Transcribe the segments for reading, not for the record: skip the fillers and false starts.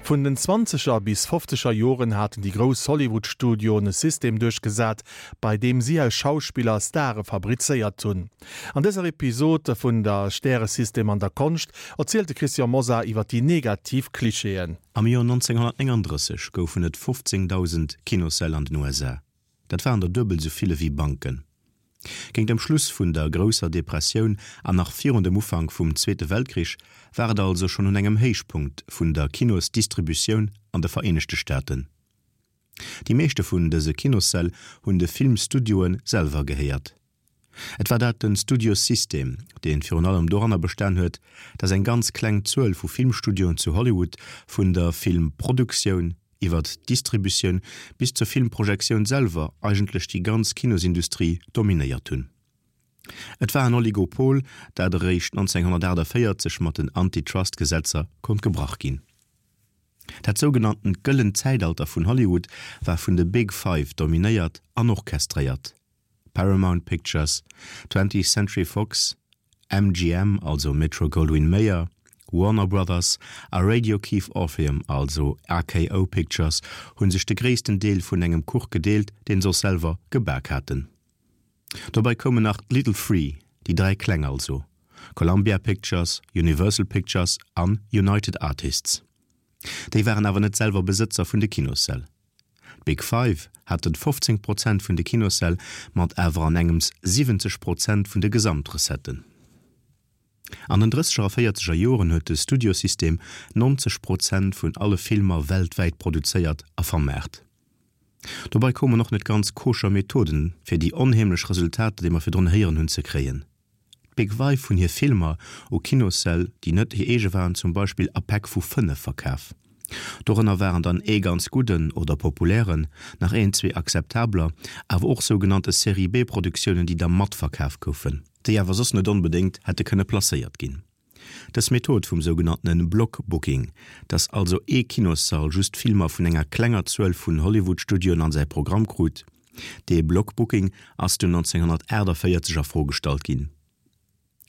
Vun den zwanzeger bis fofzeger Joren haten déi grouss Hollywood-Studioen e System duerchgesat, bei deem si aus Schauspiller Stare fabrizéiert hunn. An dëser Episod vun der Stäresystem an der Konscht erzielt de Christian Mosar iwwer déi negativ Klischeeën. Am Joer 1939 goufen et 15.000 Kinossäll an den USA. Dat waren der duebel sou vill ewéi Banken. Géint dem Schluss vun der grousser Depressioun an nach virun dem Ufank vum Zweete Weltkrich war et also schonn un engem Héichpunkt vun der Kinosdistributioun an de Vereenegte Staaten. Déi meeschte vun dëse Kinossäll hunn de Filmstudioe selwer gehéiert. Et war dat den Studiosystem, dee virun allem doranner bestan huet, datt eng ganz kleng Zuel vu Filmstudioen zu Hollywood vun der Filmproduktioun iwwert d'Distributioun bis zur Filmprojektioun selwer eigentlech déi ganz Kinosindustrie dominéiert hunn. Et war en Oligopol, dat eréischt 1948 mat den Antitrust-Gesetzer konnt gebrach ginn. Dat sougenanntent gëllent Zäitalter vun Hollywood war vun de Big Five dominéiert an orchestréiert. Paramount Pictures, Twentieth Century Fox, MGM, also Metro-Goldwyn-Mayer, Warner Brothers a Radio Keith Orpheum, also RKO Pictures, hu sech de gréissten Deel vun engem Kuch gedeelt, deen se och selwer gebak haten. Dobäi koumen nach d'Little Free, déi 3 Kleng also, Columbia Pictures, Universal Pictures an United Artists. Déi waren awer net selwer Besëtzer vun de Kinossäll. D'Big Five haten 15 Prozent vun de Kinossäll, mat awer an engems 70 Prozent vun de Gesamtrecetten. An den drësseger a véierzeger Joren huet de Studiosystem 90 Prozent vun alle Filmer weltwäit produzéiert a vermaart. Dobei koumen och net ganz koscher Methoden, fir déi onheemlech Resultater, déi mer virdrun héieren hunn, ze kréien. D'Big Five hunn hir Filmer u Kinossäll, déi net hir eege waren, zum Beispill a Päck vu 5 verkaf. Dorënner waren dann ee ganz gudden oder populären, nach een, zwee akzeptabler, awer och sougenannte Serie-B-Produktiounen, déi da matverkaf goufen, déi awer soss net onbedéngt hätte kënne placéiert ginn. Dës Method vum sougenanntene Block-Booking, dass also ee Kinossall just Filmer vun enger klenger Zuel vun Hollywood-Studioen an säi Programm krut, dee Block-Booking ass dunn 1948 a Fro gestallt ginn.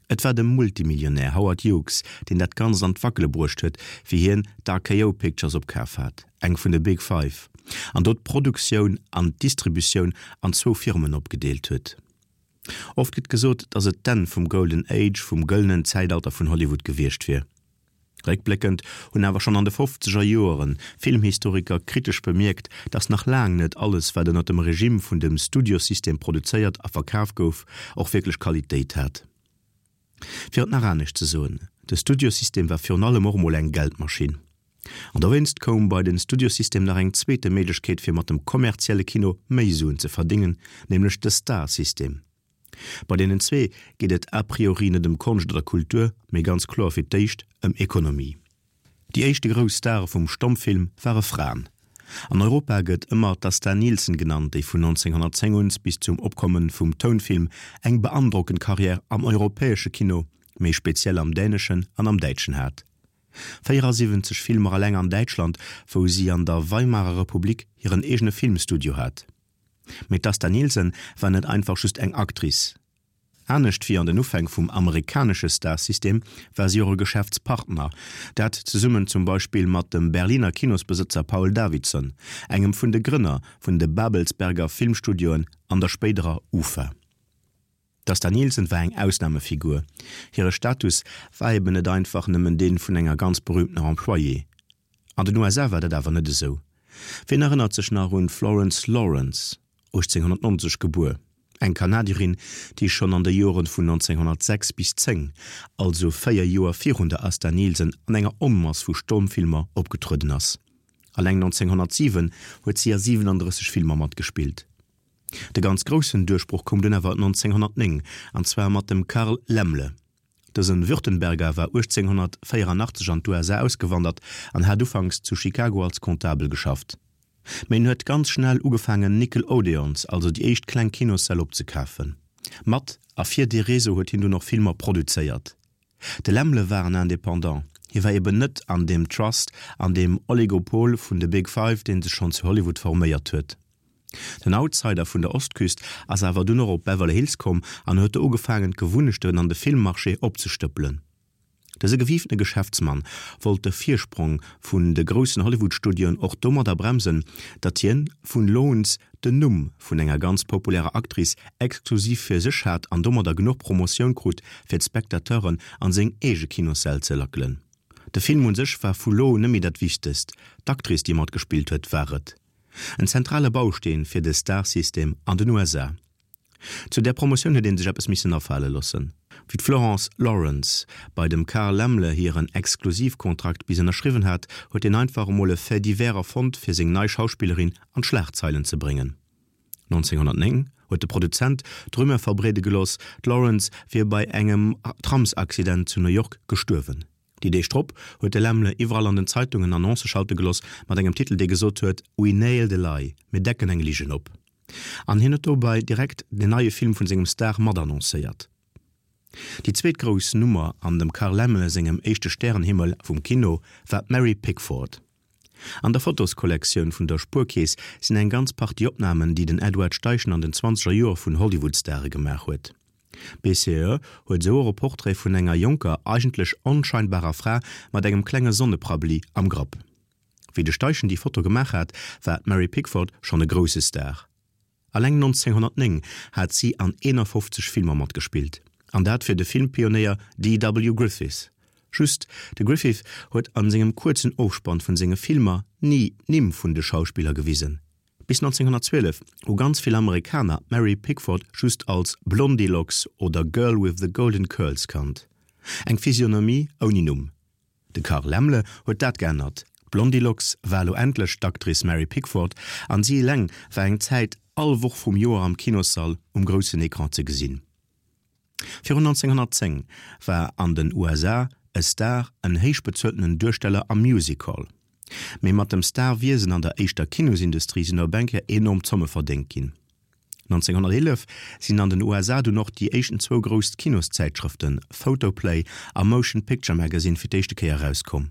Et war de Multimillionär Howard Hughes, deen dat Ganzt an d'Wackele bruecht huet, wéi hien d'RKO Pictures opkaf hat, eng vun de Big Five, an do d'Produktioun an d'Distributioun an zwou Firmen opgedeelt huet. Oft gëtt gesot, datt et d'Enn vum Golden Age, vum gëllenen Zäitalter vun Hollywood gewiescht wier. Réckbléckend hunn awer schonn an de fofzeger Joeren Filmhistoriker kritesch bemierkt, datt nach laang net alles, wat ënner dem Regime vun dem Studiosystem produzéiert a verkaf gouf, och wierklech Qualitéit hat. Fir et nach anescht ze soen, de Studiosystem war virun allem och emol eng Geldmaschinn. An dowéinst koum bei den Studiosystem nach eng zweete Méiglechkeet fir mat dem kommerzielle Kino méi Suen ze verdéngen, nämlech de Star-System. Bei deenen zwee geet et a priori net ëm Konscht oder Kultur, mee ganz kloer fir d'éischt ëm Ekonomie. Déi éischte grouss Stare vum Stommfilm ware Fraen. An Europa gëtt ëmmer d'Asta Nielsen genannt, déi vun 1910 un bis zum Opkomme vum Tounfilm eng beandrockend Karriär am europäesche Kino, méi speziell am däneschen an am däitschen hat. 74 Filmer eleng an Däitschland, wou si an der Weimarer Republik hiren eegene Filmstudio hat. Mee d'Asta Nielsen war net einfach just eng Actrice. Anescht wéi an den Ufäng vum amerikanesche Star-System war si och e Geschäftspartner, dat zesummen zum Beispill mat dem Berliner Kinosbesëtzer Paul Davidson, engem vun de Grënner vun de Babelsberger Filmstudioen an der spéiderer UFA. D'Asta Nielsen war eng Ausnamefigur. Hire Status war eben net einfach nëmmen dee vun enger ganz berüümtener Employée. An den USA war dat awer net esou. Wien erënnert sech nach un d'Florence Lawrence, 1890 gebuer, eng Kanadierin, déi schonn an de Joren vun 1906 bis 10, also 4 Joer virun der Asta Nielsen, an enger Onmass vu Stommfilmer opgetrueden ass. Alleng 1907 huet si a 37 Filmer matgespillt. De ganz groussen Duerchbroch koum dunn awer 1909, an zwar mat dem Carl Laemmle. Dësen Württemberger war 1884 an d'USA ausgewandert an hat ufanks zu Chicago als Comptabel geschafft. Mee en huet ganz schnell ugefaangen Nickel Odeons, also déi éischt kleng Kinossäll opzekafen. Mat a fir dee Réseau huet hien dunn och Filmer produzéiert. De Laemmle war en Indépendant, hie war eben net an deem Trust, an deem Oligopol vun de Big Five, dee sech schonn zu Hollywood forméiert huet. Den Outsider vun der Ostküst ass awer dunn och op Beverly Hills komm an huet do ugefaangen d'Gewunnechten an de Filmmarché opzestëppelen. Dëse gewiiftene Geschäftsmann wollt de Virsprong vun de groussen Hollywood-Studioen och domadder bremsen, datt hien vun Loans den Numm vun enger ganz populärer Actrice exklusiv fir sech hat an domadder genuch Promotioun krut, fir d'Spectateuren an seng eege Kinossäll ze lackelen. De Film un sech war vu lo un net méi dat Wichtegst, d'Actrice déi matgespillt huet war et. En zentrale Bausteen fir de Star-System an den USA. Zu där Promotioun huet ee sech eppes missen afale loossen. Wéi d'Florence Lawrence bei dem Carl Laemmle hiren Exklusivkontrakt bis ënnerschriwwen hat, huet hien einfach emol e Fait divers erfonnt, fir seng nei Schauspillerin an d'Schlagzeilen ze bréngen. 1909 huet de Produzent d'Rumeur verbreede gelooss, d'Lawrence wier bei engem Tramsaccident zu New York gestuerwen. Déi Deeg drop huet de Laemmle iwwerall an den Zeitungen Annoncë schalte gelooss mat engem Titel, dee gesot huet, We nailed a lie, Mir decken eng Ligen op. An hien huet dobei direkt den neie Film vun sengem Star mat annoncéiert. Déi zweet grouss Nummer an dem Carl Laemmle sengem éischte Stärenhimmel vum Kino war d'Mary Pickford. An der Fotoskollektioun vun der Spuerkeess sinn eng ganz Partie Opnamen, déi den Edward Steichen an den zwanzeger Joer vun Hollywood-Stare gemaach huet. BCE huet esou och e Portrait vun enger jonker, eigentlech onscheinbarer Fra mat engem klenge Sonneprabli am Grapp. Wéi de Steichen déi Foto gemaach hat, war d'Mary Pickford schonn e grousse Star. Alleng 1909 hat si an 51 Filmer matgespillt, an dat fir de Filmpionéier DW. Griffith. Just, de Griffith huet an sengem kuerzen Ofspann vun senge Filmer ni d'Nimm vun de Schauspiller gewisen. Bis 1912 hu ganz vill Amerikaner d'Mary Pickford just als Blondilocks oder Girl with the Golden Curls kannt. Eng Physionomie ouni Numm. De Carl Laemmle huet dat geännert, D'Blondilocks war elo endlech d'Actrice Mary Pickford an si eleng war eng Zäit all Woch vum Joer am Kinossall um groussen Ecran ze gesinn. Virun 1910 war an den USA e Star en héich bezueltenen Duersteller am Music Hall. Mee mat dem Star-Wiesen an der éischter Kinosindustrie sinn op eng Kéier enorm Zomme verdéngt ginn. 1911 sinn an den USA dunn och déi éischten zwou grouss Kinoszäitschrëften Photoplay a Motion Picture Magazine fir d'éischte Kéier erauskomm.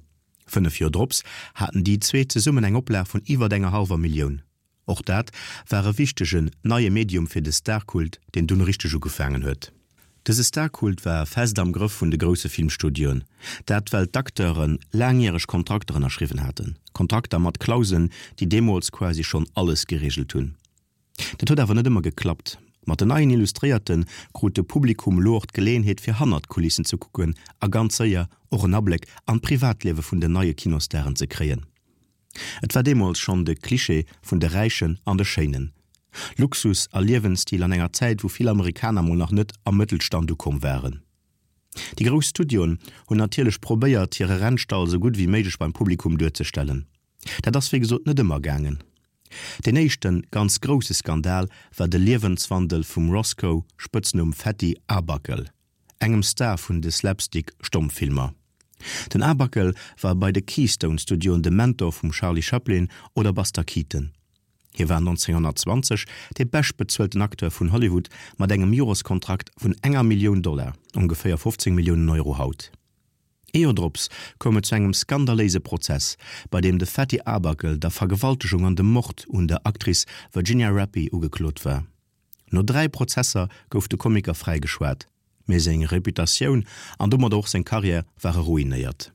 5 Joer drops haten déi zwee zesummen eng Oplag vun iwwert enger hallwer Millioun. Och dat war e wichtegen neie Medium fir de Starkult, deen dunn richteg ugefaangen huet. Dëse Starkult war fest am Grëff vun de grousse Filmstudioen. Dat well d'Acteure laangjäreg Kontrakter ënnerschriwwen haten, Kontrakter mat Klauseln, déi deemools quasi schonn alles gereegelt hunn. Dat huet awer net ëmmer geklappt. Mat den neien Illustréierte krut de Publikum elo och d'Geleeënheet fir hannert d'Kulissen ze kucken a ganz séier och en Abléck an d'Privatliewe vun den neie Kinostaren ze kréien. Et war deemools schonn de Klischee vun de Räichen an de Schéinen. Luxus a Liewensstil an enger Zäit wou vill Amerikaner mol nach net am Mëttelstand ukomm waren. Déi grouss Studioen hunn natierlech probéiert hire Rennstall sou gutt wéi méiglech beim Publikum duerzestellen. Dat ass wéi gesot net ëmmer gaangen. Deen éischte ganz grousse Skandal war de Liewenswandel vum Roscoe, Spëtznumm Fatty Arbuckle, engem Star vun de Slapstick-Stommfilmer. Den Arbuckle war bei de Keystone Studioen de Mentor vum Charlie Chaplin oder Buster Keaton. Hie war 1920 dee beschtbezuelten Acteur vun Hollywood mat engem Joreskontrakt vun enger Millioun Dollar, ongeféier 15 Milliounen Euro haut. Ee Joer drops koum et zu engem skandaléise Prozess, bei deem de Fatty Arbuckle der Vergewaltegung an dem Mord un der Actrice Virginia Rappi ugeklot war. No 3 Prozesser gouf de Komiker fräigeschwat, mee seng Reputatioun an domadder och seng Karriär ware ruinéiert.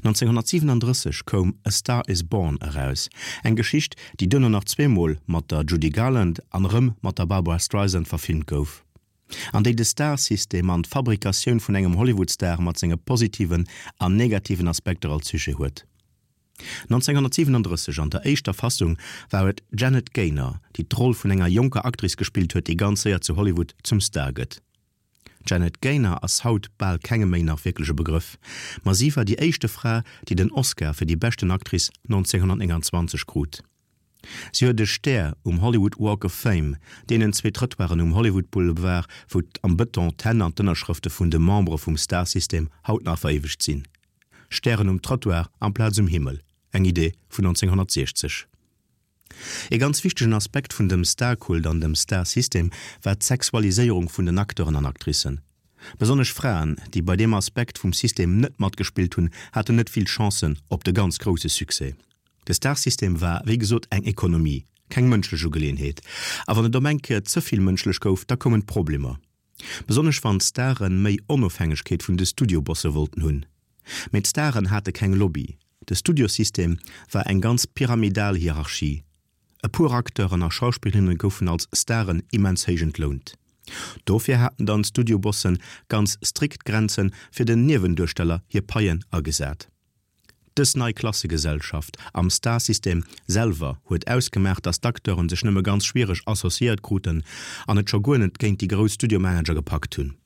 1937 koum A Star Is Born eraus, eng Geschicht, déi duerno nach zweemol mat der Judy Garland an erëm mat der Barbra Streisand verfilmt gouf. An déi de Star-System an d'Fabrikatioun vun engem Hollywood-Star mat senge positiven an negativen Aspekter als Sujet huet. 1937, an der éischter Fassung, war et d'Janet Gaynor, déi d'Roll vun enger jonker Actrice gespillt huet, déi ganz séier zu Hollywood zum Star gëtt. D'Janet Gaynor ass haut bal kengem méi nach wierklech e Begrëff, ma si war déi éischte Fra, déi den Oscar fir déi beschten Actrice 1929 krut. Si huet e Stär um Hollywood Walk of Fame, deenen zwee Trëttoiren um Hollywood Boulevard, wou am Bëton d'Hänn an d'Ënnerschrëfte vun de Membere vum Star-System haut nach veréiwegt sinn. Stären um Trottoir amplaz um Himmel, eng Idee vun 1960. E ganz wichtegen Aspekt vun dem Star-Kult an dem Star-System war d'Sexualiséierung vun den Acteuren an Actricen. Besonnesch Fraen, déi bei deem Aspekt vum System net matgespillt hunn, haten net vill Chancen op de ganz grousse Succès. De Star-System war, wéi gesot, eng Ekonomie, keng mënschlech Ugeleeënheet. A wann et op eng Kéier ze vill mënschlech gouf, da koumen d'Problemer. Besonnesch wann d'Stare méi Onofhängegkeet vun de Studiobosse wollten hunn. Mee d'Staren hate keng Lobby. De Studiosystem war eng ganz pyramidal Hierarchie. E puer Acteuren a Schauspillerinne goufen als Staren immens héich entlount. Dofir haten dann d'Studiobosse ganz strikt Grenze fir den Niewenduersteller hir Paien agesat. Dës nei Klassegesellschaft am Star-System selwer huet ausgemaach, datt d'Acteuren sech nëmme ganz schwiereg associéiert kruten an et scho guer net géint déi grouss Studiomanager gepackt hunn.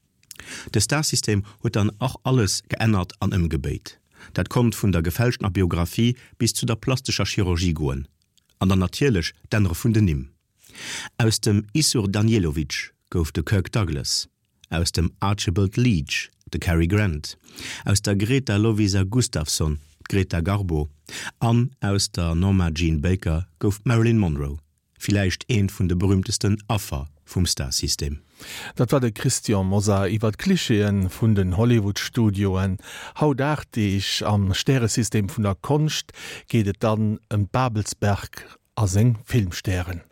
De Star-System huet dann och alles geännert an ëmgebéit. Dat konnt vun der gefälschtener Biographie bis zu der plastescher Chirurgie goen. An dann natierlech d'Ännere vun den Nimm. Aus dem Issur Danielovitch gouf de Kirk Douglas, aus dem Archibald Leitch de Cary Grant, aus der Greta Lovisa Gustafsson d'Greta Garbo an aus der Norma Jean Baker gouf d'Marilyn Monroe, villäicht eent vun de berühmtesten Affer vum Star-System. Dat war de Christian Mosar iwwer d'Klichéen vun den Hollywood-Studioen. Haut 8 Deeg am Stäresystem vun der Konscht geet et dann ëm d'Babelsberg a seng Filmstären.